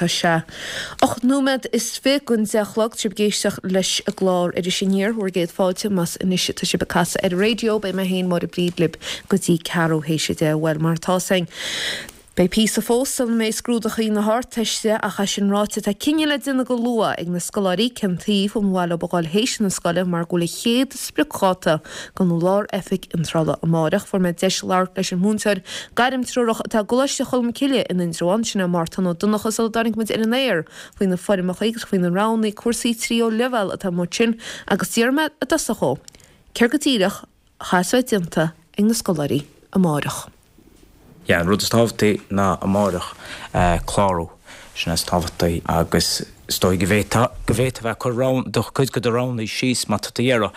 Tá sé 8 nóiméad is 20 don 10 a chlog. Tá sibh ag éisteacht leis an gclár Iris Aniar, bhur gcéad fáilte más anois atá sibh ag casadh ar an raidió. Beidh mé féin, Máire Bríd, libh go dtí ceathrú théis a 10. Bhuel, mar atá 's againn, beidh píosa fós sula mbeidh scrúdachaí na hArdteiste ach é sin ráite tá cinneadh le déanamh go luath ag na scoláirí cén taobh an mhaith leo a dhul théis na scoile mar go bhfuil an chéad spriocdháta don Lár-Oifig Iontrála amáireach. Fuair mé deis labhairt leis an mhúinteoir gairmtreorach atá i gColáiste Cholmcille in Indreabhán, sin é Mártan Ó Donnchadha sula dtáinig muid ar an aer faoi na foirmeacha agus faoi na roghanna cúrsaí tríú leibhéal atá amuigh ansin agus d'iarr mé i dtosach dhó céard go díreach a chaithfeas bheith déanta ag na scoláirí amáireach. Yeah, an rud is tábhachtaí ná amáireach clárú, sin is tábhachtaí agus is dóigh go bhféadfá, go bhféadfá bheith ag cur roghanna, do chuid de do roghanna síos má tá tú ag iarraidh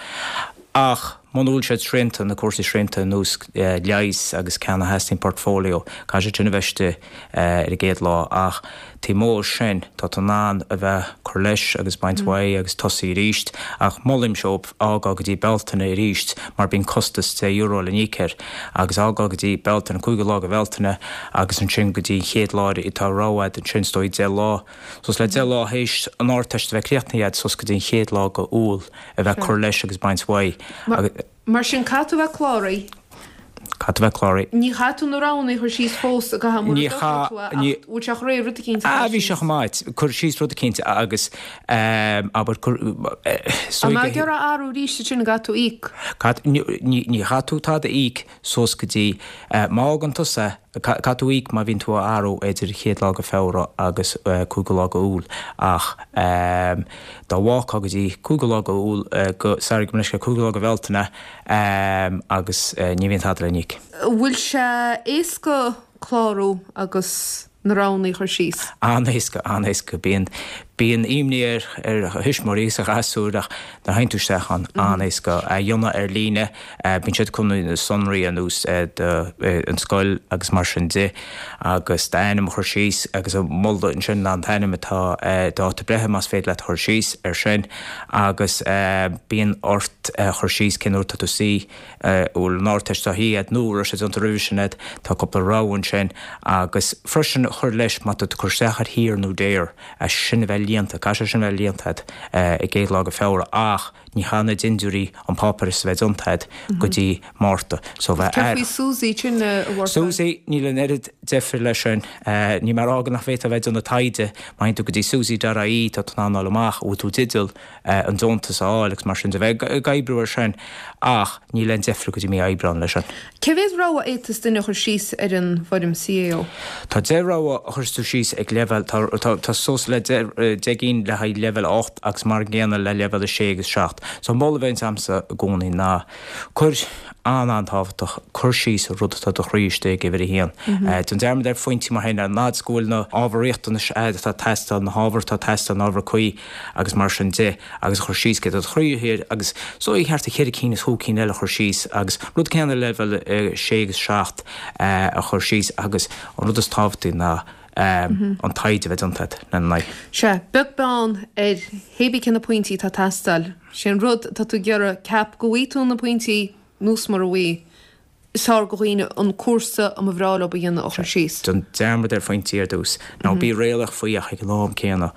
ach muna bhfuil siad srianta, na cúrsaí srianta ar nós leighis agus ceann a theastaíonn portfolio, caithfidh siad sin a bheith istigh ar an gcéad lá ach taobh amuigh de sin tá tú in ann a bheith cur leis agus baint uaidh agus tosaí arís ach molaimse dóibh fhágáil go dtí Bealtaine arís mar bíonn costas €10 le n-íoc air agus fhágáil go dtí Bealtaine, cúigiú lá de Bhealtaine agus ansin go dtí an chéad lá tá rogha agat ansin is dóigh 10 lá suas le 10 lá théis an Ardteist a bheith críochnaithe agat suas go dtí an chéad lá de Iúil a bheith cur leis agus baint uaidh agus Mar sin, caithfidh tú a bheith cláraithe. Caithfidh tú a bheith cláraithe. Ní chaithfidh tú na roghanna a chur síos fós i gcaitheamh mura dtosaigh tú é, ach bhfuil sé chomh réidh rud eicínt a chur síos? Bhí sé chomh maith. Cur síos rud eicínt agus abair cur An mbeidh ag iarraidh athrú arís ansin an gcaithfidh tú íoc? Ní chaithfidh tú tada a íoc suas go dtí má fhágann tusa Caithfidh tú íoc má bhíonn tú á athrú idir an chéad lá de Feabhra agus cúigiú lá de Iúil ach dá bhfágfá go dtí cúigiú lá de Iúil go, sorry, gabh mo leithscéal, cúigiú lá de Bhealtaine agus ní bhíonn tada le n-íoc. An bhfuil sé éasca clárú agus na roghanna a chur síos? An-éasca, an-éasca. Bíonn, bíonn imní ar, ar thuismitheoirí agus ar ghasúir ach nuair a théann tú isteach ann, an-éasca a dhéanamh ar líne. Bíonn siad chun na sonraí ar nós an scoil agus mar sin de agus d'ainm a chur síos agus an moladh ansin ná an t-ainm atá dáta breithe más féidir leat a chur síos ar sin agus bíonn ort a chur síos cén uair atá tú suí, an bhfuil an Ardteist á shuí agat nó an raibh sé déanta roimhe sin agat, tá cúpla rogha ansin agus freisin a chur leis má tá tú ag cur isteach ar shaor nó daor, é sin a bheith líonta, caithfidh sé sin a bheith líonta agat an gcéad lá de Feabhra ach Ní chaithfidh na dindiúirí an páipéar a bheith déanta agat go dtí Márta. So bheith Céard faoi SUSI sin a Mhártain? SUSI, níl an oiread deifir leis sin. Níl mé ag rá go nach bhféadfá a bheith ag déanamh taighde. Má théann tú go dtí susi.ie tá tú in ann fháil amach an bhfuil tú i dteideal an deontas a fháil agus mar sin de. Bheith ag oibriú ar sin ach níl aon deifir go dtí mí Aibreán leis sin. Cé mhéad rogha a fhéadfas duine a chur síos ar an bhfoirm CAO? Tá 10 rogha a chuireas tú síos ag leibhéal, tá, tá suas le 10 gcinn le haghaidh leibhéal 8 agus mar an gcéanna le leibhéal 6 agus 7. So an moladh a bheidh agamsa i gcónaí ná cuir, an-an-tábhachtach, cuir síos an rud atá i do chroí istigh ag uimhir a haon. Déan dearmad ar phointí mar sin, an fhad is go bhfuil na ábhair riachtanais agat atá ag teastáil, na hábhair atá ag teastáil, na hábhair cuí agus mar sin de. agus a chur síos céard atá i do chroí thiar agus is dóigh thart ar cheithre cinn is chúig cinn eile a chur síos agus rud céanna le leibhéal 6 agus 7 a chur síos agus an rud is tábhachtaí ná an taighde a bheith déanta agat lena n-aghaidh. Sea, beag beann ar hé bí cé na pointí atá ag teastáil, sé an rud atá tú ag iarraidh, ceap go bhfaighidh tú na pointí nó mura bhfaighidh. Is fearr do dhaoine an cúrsa a mba bhreá leo a dhéanamh a chur síos. Déan dearmad ar phointí ar dtús. Ná bí réalaíoch faoi ach ag an am céanna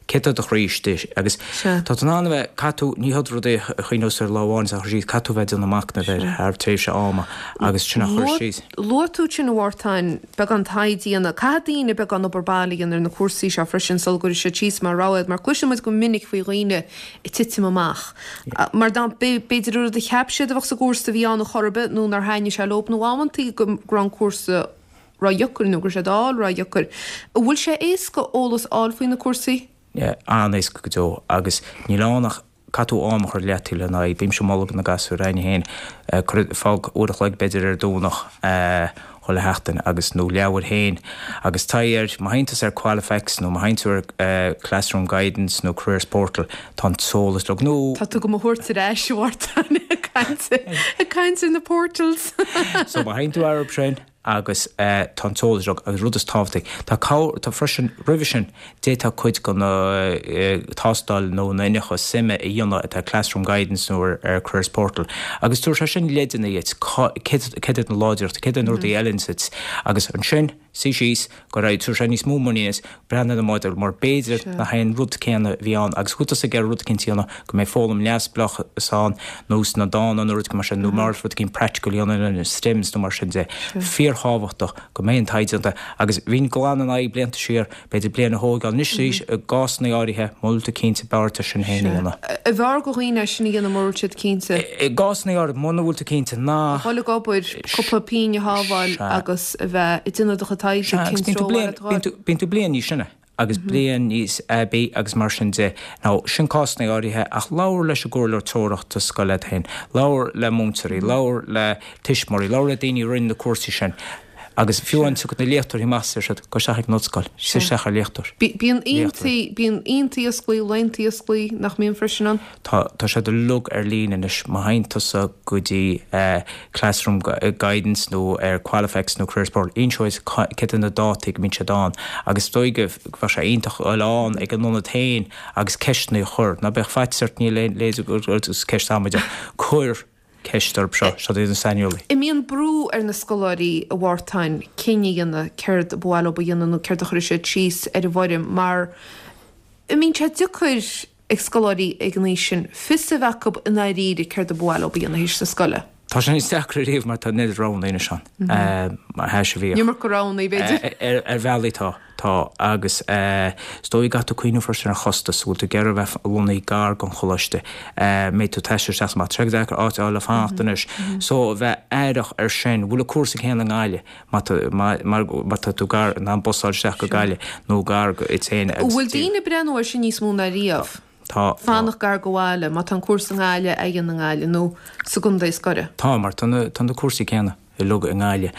céard atá i do chroí istigh agus tá tú in ann a bheith, caithfidh tú, ní hiod rud é a chuimhneos ar lá amháin is a chur síos, caithfidh tú a bheith ag déanamh machnaimh air thar tréimhse ama agus sin a chur síos. Luaigh tú ansin a Mhártain, beagán taighde a dhéanamh. Caithfidh daoine beagán obair baile a dhéanamh ar na cúrsaí seo freisin sula gcuirfidh siad síos mar rogha iad mar cloiseann muid go minic faoi dhaoine ag titim amach. Mar dá mb'fhéidir an rud a cheap siad a bheadh sa gcúrsa a bhí ann a chor ar bith nó nár thaitnigh sé leob nó amantaí go raibh an cúrsa ródheacair nó go raibh sé d'fháil ródheacair. An bhfuil sé éasca eolas a fháil faoi na cúrsaí? An-éasca go deo agus níl ann ach caithfidh tú am a chur leataobh lena aghaidh. Bímse ag moladh do na gasúir againne féin, cuir, fág uair a chloig b'fhéidir ar Domhnach, chuile sheachtain agus nó leabhair féin agus taighde air, má théann tusa ar Qualifax nó má théann tú ar Classroom Guidance nó Careers Portal tá an t-eolas uilig nó. Tá tú do mo thabhairt ar ais, a Mhártain, ag caint ag caint ar na portals. So má théann tú orthu sin agus tá an t-eolas uilig agus rud is tábhachtaí tá cabhair tá freisin roimhe sin D'fhéadfá cuid de na tástáil nó na iniúchadh suime a dhéanamh atá ar Classroom Guidance nó ar Careers Portal agus tabharfaidh sé sin leideanna dhuit céard iad na láidreachtaí, céard iad na rudaí a fheileann duit agus ansin. suí síos, go raibh, tabharfaidh sé níos mó muiníne duit, breathnú ar an modúl mar b'fhéidir nach é an rud céanna a bhí ann agus go bhfuil tusa ag iarraidh rud eicínt a dhéanamh go mbeidh foghlaim neamhspleách ann nó sna dána nó rud mar sin nó mar rud eicínt practical a dhéanamh na STEMs nó mar sin de. Fíorthábhachtach go mbeidh an taighde déanta agus bhínn glan in aghaidh blianta siar b'fhéidir bliain a thógáil. Anois arís i gcásanna áirithe mura bhfuil tú cinnte b'fhearr duit sin féin a dhéanamh. An bhfearr do dhaoine é sin a dhéanamh mura bhfuil siad cinnte. I gcásanna áirithe muna bhfuil tú cinnte ná. A dhul ag obair, cúpla pingin a shábháil agus a bheith ag déanamh do chuid taighde cén treo a bhfuil. Bíonn tú bliain níos sine agus bliain níos aibí agus mar sin de. Now, sin cásanna áirithe ach labhair leis an gcomhairleoir treorach scoile agat féin, labhair le múinteoirí, labhair le tuismitheoirí, labhair le daoine a rinne na cúrsaí sin agus fiú amháin tiocfaidh na léachtóirí amach is deir siad, gabh isteach ag an ollscoil, suigh isteach ar léachtóir. Bíonn aontaí, bíonn aontaí osclaí, laethanta osclaí nach mbíonn freisin ann? Tá, tá siad uilig ar líne anois. Má théann tusa go dtí Classroom Guidance nó ar Qualifax nó Careers Portal, inseoidh cad é na dátaí go mbíonn siad ann agus is dóigh go bheadh sé iontach a dhul ann ag an ionad féin agus ceisteanna a chur. Ná bíodh faitíos ort, níl aon, leithéid is ceist amaideach. Cuir ceist orthu seo, siad iad na saineolaí. An mbíonn brú ar na scoláirí, a Mhártain, cinneadh a dhéanamh céard ba mhaith leo a dhéanamh nó céard a chuirfidh siad síos ar an bhfoirm mar an mbíonn sé deacair ag scoláirí ag an aois sin fios a bheith acu i ndáiríre céard a ba mhaith leo a dhéanamh théis na scoile. Tá sé níos deacra ariamh mar tá an oiread roghanna anois ann mar a bhíodh. An iomarca roghanna, b'fhéidir. Ar bhealaí tá, tá agus is dóigh go gcaithfidh tú cuimhneamh freisin ar chostas, bhfuil tú ag iarraidh a bheith lonnaithe gar don choláiste, mbeidh tú ag taisteal isteach is amach, tá sé deacair áit a fháil le fanacht anois so a bheith aireach ar sin, bhfuil an cúrsa céanna i nGaillimh? Má tá tú gar, in ann bus a fháil isteach go Gaillimh nó gar duit féin agus. Bhfuil daoine ag breathnú air sin níos mó ná riamh? Tá. Fanacht gar do bhaile, má tá an cúrsa i nGaillimh, é a dhéanamh i nGaillimh nó sa gcontae is gaire. Tá, mar tá na, tá na cúrsaí céanna uilig i nGaillimh,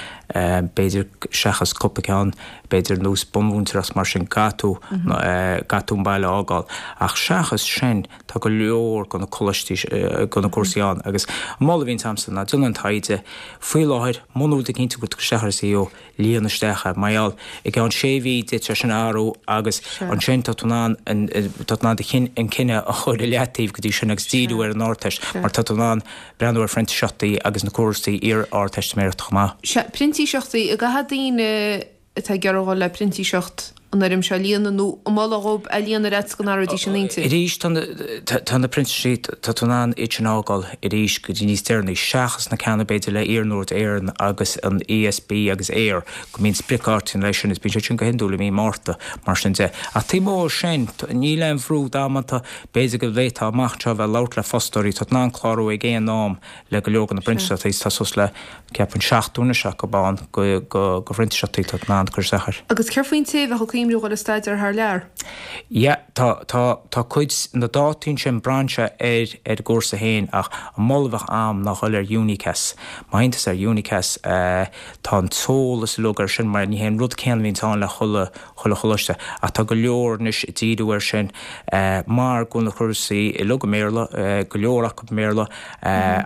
b'fhéidir seachas cúpla ceann, b'fhéidir nós bunmhúinteoireacht mar sin, caithfidh tú, caithfidh tú an baile a fhágáil. Ach seachas sin, Tá go leor de na coláistí, de na cúrsaí ann agus an moladh a bhíonns a'msa ná déan an taighde. Faoi láthair, muna bhfuil tú cinnte go bhfuil tú ag dul isteach ar CAO, líon isteach é. Mar gheall, i gceann sé mhí d'fhéadfadh sé sin a athrú agus ansin tá tú in ann, tá tú in ann do chinn, an cinneadh a chur i leataobh go dtí sin agus díriú ar an Ardteist mar tá tú in ann breathnú ar phrintíseachtaí agus na cúrsaí iar-Ardteistiméireachta chomh maith. Sea, printíseachtaí, an gcaithfidh daoine atá ag iarraidh dhul le printíseacht an fhoirm seo a líonadh nó an moladh dhóibh é a líonadh ar fhaitíos go n-athróidís a n-intinn? Arís, tá na, tá na printíseachtaí, tá tú in ann iad sin a fhágáil arís go dtí níos deireanaí, seachas na ceanna b'fhéidir le Iarnród Éireann agus an ESB agus Eir, go mbíonn spriocdhátaí leis sin, is bíonn siad sin go hiondúil i mí Márta, mar sin de. Ach taobh amuigh de sin, níl aon bhrú damanta, b'fhéidir go bhféadfá amach anseo a bheith ag labhairt le fostóirí, tá tú in ann clárú ag aon am le go leor de na printíseachtaí, tá suas le. Ceapaim 70 anois acu ann de phrintíseachtaí tá tú in ann cur isteach air. Agus céard faoin té a bheadh ag cuimhniú dhul ag staidéar thar lear? Yeah, tá, tá, tá cuid, na dátaí ansin braitheann sé ar, ar an gcúrsa féin ach an moladh a bheadh a'm ná dhul ar Unicas. Má théann tusa ar Unicas, tá an t-eolas uilig ar sin mar ní hé an rud céanna a bhíonns ann le chuile, chuile choláiste ach tá go leor anois ag díriú air sin mar go bhfuil na cúrsaí uilig i mBéarla, go leor acu i mBéarla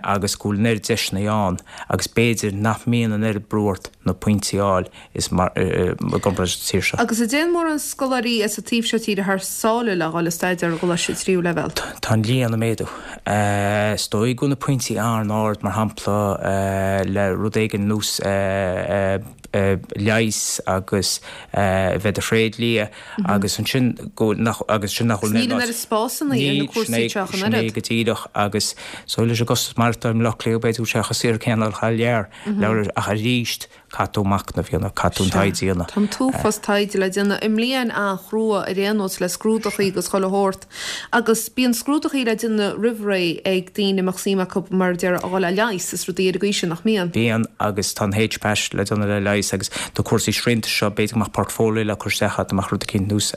agus go bhfuil an oiread deiseanna ann agus b'fhéidir nach mbíonn an oiread brú ort na pointí a fháil is mar i gcomparáid leis an tír seo. Agus an dtéann mórán scoláirí as an taobh seo tíre thar sáile le dhul ag staidéar i gcoláiste tríú leibhéal? Tá an líon ag méadú. Is dóigh go bhfuil na pointí an-ard mar shampla le rud éigin nós leigheas agus a bheith i do thréidlia agus ansin go nach agus sin nach bhfuil Níl an oiread spásanna ar na cúrsaí seo ach an oiread. Sin é go díreach agus so leis an gcostas maireachtála i mBaile Átha Cliath b'fhéidir go bhfuil sé chomh saor céanna thar lear ach arís caithfidh tú machnamh a dhéanamh, caithfidh tú an taighde a dhéanamh. Tá an t-uafás taighde le déanamh i mbliain an-chrua ar aon nós le scrúdachaí agus chuile shórt. Agus bíonn scrúdachaí le déanamh roimh ré ag daoine a mbeadh suim acu, mar a déarfá, a dhul le leigheas is rudaí ar an gcaoi sin, nach mbíonn? Bíonn, agus tá an HPAT le déanamh le leigheas agus na cúrsaí srianta seo, b'fhéidir go mbeadh portfolio le cur isteach agat, go mbeadh rud eicínt nós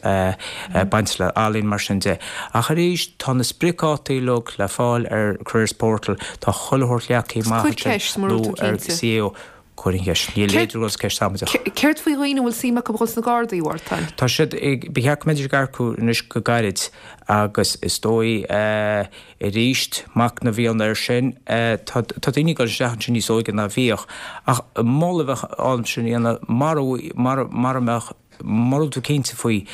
baint le ealaín mar sin de. Ach arís, tá na spriocdhátaí uilig le fáil ar Careers Portal, tá chuile shórt leagtha amach ansin nó ar CAO. Cuir an cheist. Níl leithéid de cheist amaideach. Céard faoi dhaoine a bhfuil suim acu a dhul sna Gardaí, a Mhártain? Tá siad ag, ba cheart go mbeidís ag earcú anois go gairid agus is dóigh arís, machnamh a dhéanamh air sin, tá tá daoine ag dul isteach ansin níos óige ná bhíodh. Ach moladh a bheadh ann sin a dhéanamh mara mara mara mbeadh, mura bhfuil tú cinnte faoi,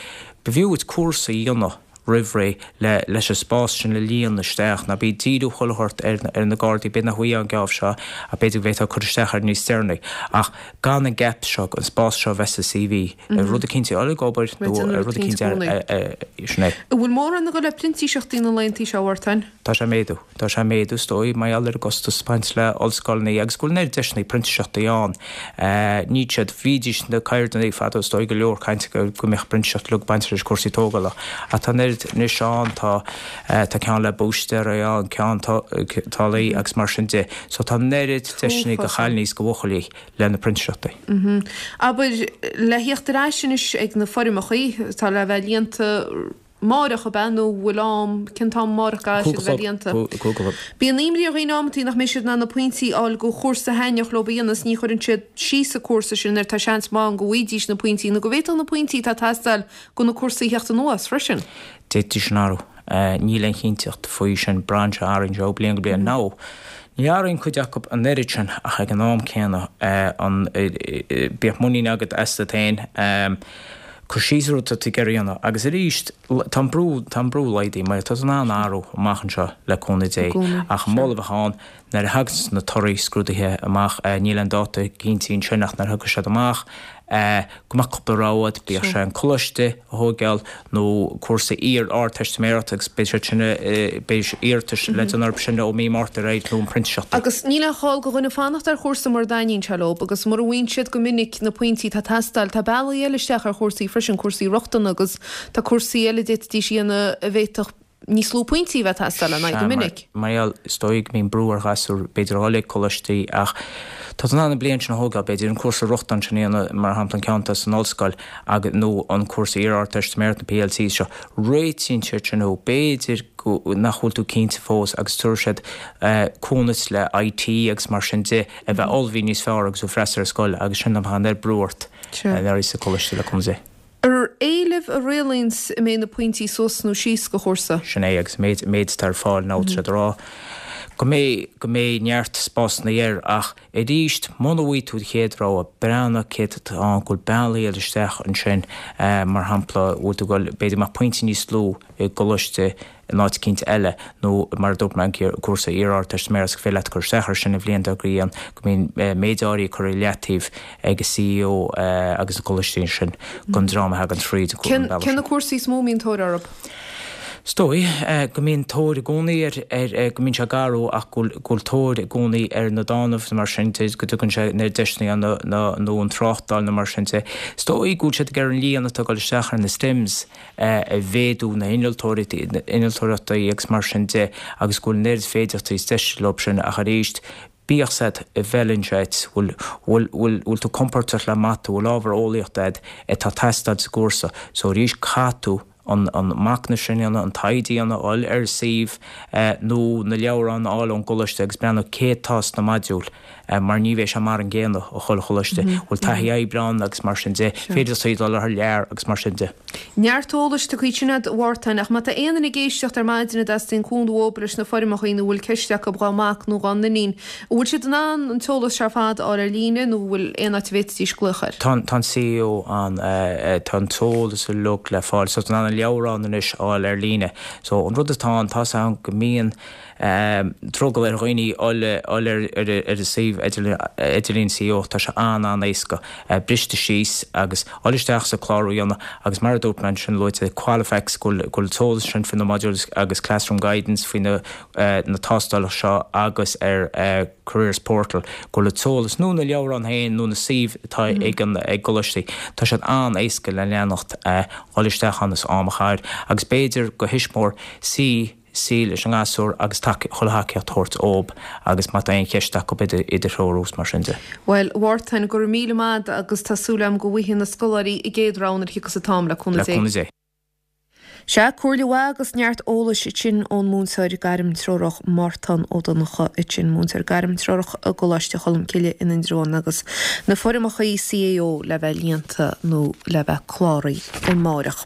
b'fhiú duit cúrsa a dhéanamh. roimh ré le leis an spás sin a líonadh isteach. Ná bí ag díriú chuile shórt ar ar na Gardaí, b'fhéidir nach bhfaighfeá an geábh seo ach b'fhéidir go bhféadfá cur isteach air níos deireanaí. Ach gan an gap seo, an spás seo a bheith sa CV, ar rud eicínt a fháil ag obair nó ar rud eicínt ar, sin é. An bhfuil mórán ag dul le printíseachtaí na laethantaí seo, a Mhártain? Tá sé ag méadú. Tá sé ag méadú, is dóigh, mar gheall ar an gcostas ag baint le ollscoileanna agus go bhfuil an oiread deiseanna printíseachtaí ann. Níl siad, bhídís na ceirdeanna fadó, is dóigh, go leor cainte go mbeadh printíseacht uilig ag baint leis cúrsaí tógála. Ach tá an oiread anois ann, tá, tá ceann le búistéirí ann, ceann táillí agus mar sin de. So tá an oiread deiseanna do chailíní is do bhuachaillí le na printíseachtaí. Abair, le theacht ar ais anois ag na foirmeachaí atá le bheith líonta, Amáireach, ab ea, nó bhfuil am, cén t-am amáireach a gcaithfidh siad a bheith líonta? Bíonn imní ar dhaoine amantaí nach mbeidh siad in ann na pointí a fháil go chúrsa a thaitneodh leo a dhéanamh is ní chuireann siad síos an cúrsa sin nuair tá seans maith ann go bhfaighidís na pointí nó go bhféadfadh na pointí atá ag teastáil go na cúrsaí a theacht anuas freisin. D'fhéadfaí sin athrú. Níl aon chinnteacht faoi sin. Braitheann sé, athraíonn sé ó bliain go bliain. Now, ní athraíonn cuid acu an oiread sin ach ag an am céanna, an, bíodh muinín agat asat féin. Cur síos ar rud atá tú ag iarraidh a dhéanamh. Agus arís, tá an brú, tá an brú laghdaithe mar tá tú in ann athrú amach anseo le cúnamh Dé. Ach an moladh a bheadh ann, nuair a thagann na torthaí scrúdaithe amach, níl aon dáta cinnte ansin ach nuair a thiocfaidh siad amach, go mbeadh cúpla rogha agat, bíodh sé an coláiste a thógáil nó cúrsa iar-Ardteistiméireachta agus beidh siad sin, beidh iarratais le déanamh orthu sin ó mí Márta ar aghaidh nó an printíseacht. Agus níl aon chall go dhuine fanacht ar chúrsa mura dtaitníonn sé leo agus mura bhfaigheann siad go minic na pointí atá ag teastáil, tá bealaí eile isteach ar chúrsaí freisin, cúrsaí rochtana agus tá cúrsaí eile a d'fhéadfaidís a dhéanamh a bhféadfadh níos lú pointí a bheith ag teastáil lena aghaidh go minic. Mar gheall, is dóigh go mbíonn brú ar ghasúir b'fhéidir a dhul ag coláistí ach tá tú in ann an bliain sin a thógáil, b'fhéidir, an cúrsa rochtana sin a dhéanamh, mar shampla an ceann atá san ollscoil agus, nó an cúrsa iar-Ardteistiméireachta, na PLCs seo. Réitíonn siad sin thú. B'fhéidir go, nach bhfuil tú cinnte fós agus tabharfaidh siad cúnamh le IT agus mar sin de a bheith ullmhaithe níos fearr agus tú ag freastal ar scoil agus sin nach mbeadh an oiread brú ort nuair a bhí sa choláiste le cúnamh Dé. Ar éileamh a rialaíonns an mbeidh na pointí suas nó síos go chúrsa. Sin é agus an méid, méid atá ar fáil now tá siad ag rá go mbeidh, go mbeidh neart spásanna air ach arís muna bhfaighidh tú do chéad rogha, breathnaigh céard atá ann, go bhfuil bealaí eile isteach ansin mar shampla bhfuil tú ag dul, b'fhéidir go mbeadh pointí níos lú i gcoláiste in áit eicínt eile nó mar a dúirt mé an cúrsa iar-Ardteistiméireachta gur féidir leat cur isteach air sin an bhliain dár gcionn go mbíonn méid áirithe curtha i leataobh ag an CAO agus na coláistí ansin don dream a thagann tríd an bealach sin. Cé na cúrsaí is mó a mbíonn tóir orthu? Is dóigh go mbíonn tóir i gcónaí ar, ar, go mbíonn sé ag athrú ach go bhfuil, go bhfuil tóir i gcónaí ar na dánaibh nó mar sin de, go dtugann sé na deiseanna na, na, nó an tráchtáil nó mar sin de. Is dóigh go bhfuil siad ag iarraidh an líon atá ag dul isteach ar na STEMs a mhéadú, na hinnealtóireachtaí agus mar sin de agus go bhfuil an oiread féidearthachtaí is deis leo sin ach arís bíodh 's agat an bhfeileann sé duit, bhfuil, bhfuil, bhfuil, bhfuil tú compordach le mata, bhfuil ábhar eolaíochta agat atá ag teastáil sa gcúrsa so arís caithfidh tú an, an machnamh sin a dhéanamh, an taighde a dhéanamh, dul ar an suíomh nó na leabhráin a fháil ón gcoláiste agus breathnú céard atá sna modúil. mar ní bheidh sé mar an gcéanna ó chuile choláiste, bhfuil taithí oibre ann agus mar sin de, féidir dul thar lear agus mar sin de. Neart eolais tugtha ansin agat a Mhártain, ach má tá aon duine ag éisteacht ar maidin a dteastaíonn cúnamh uathu leis na foirmeacha nó a bhfuil ceist acu dhá mac nó dhá n-iníon, an bhfuil siad in ann an t-eolas seo ar fad a fháil ar líne nó an bhfuil aon áit a bhféadfaidís glaoch air? Tá an CAO ann, tá an t-eolas uilig le fáil, so tá tú in ann an leabhrán anois a fháil ar líne. So an rud atá ann, tá 's agam go mbíonn, drogall ar dhaoine dul ar an suíomh idirlín CAO, tá sé an-an-éasca, briste síos agus dul isteach sa clárú a dhéanamh agus mar a dúirt mé ansin luaite Qualifax go bhfuil an t-eolas sin faoi na modules agus Classroom Guidance faoi na na tástálacha seo agus ar Careers Portal go bhfuil an t-eolas nó na leabhráin féin nó na suímh atá ag an ag gcoláistí tá siad an-éasca le leanacht dul isteach ann is am a chaitheamh agus b'fhéidir go thuismitheoir suí suí leis an ngasúr agus chuile thacaíocht a thabhairt dóibh agus má tá aon cheist acu iad a threorú is mar sin de. Bhuel, a Mhártain, go raibh míle maith agat agus tá súil agam go bhfaighidh na scoláirí a gcéad rogha nuair a thiocfas an t-am, le cúnamh Dé. Le cúnamh Dé. Sea, comhairle mhaith agus neart eolais ansin ón múinteoir gairmtreorach Mártán Ó Donnchadha ansin, múinteoir gairmtreorach i gColáiste Cholmcille in Indreabhán agus na foirmeacha CAO le bheith líonta nó le bheith cláraithe amáireach.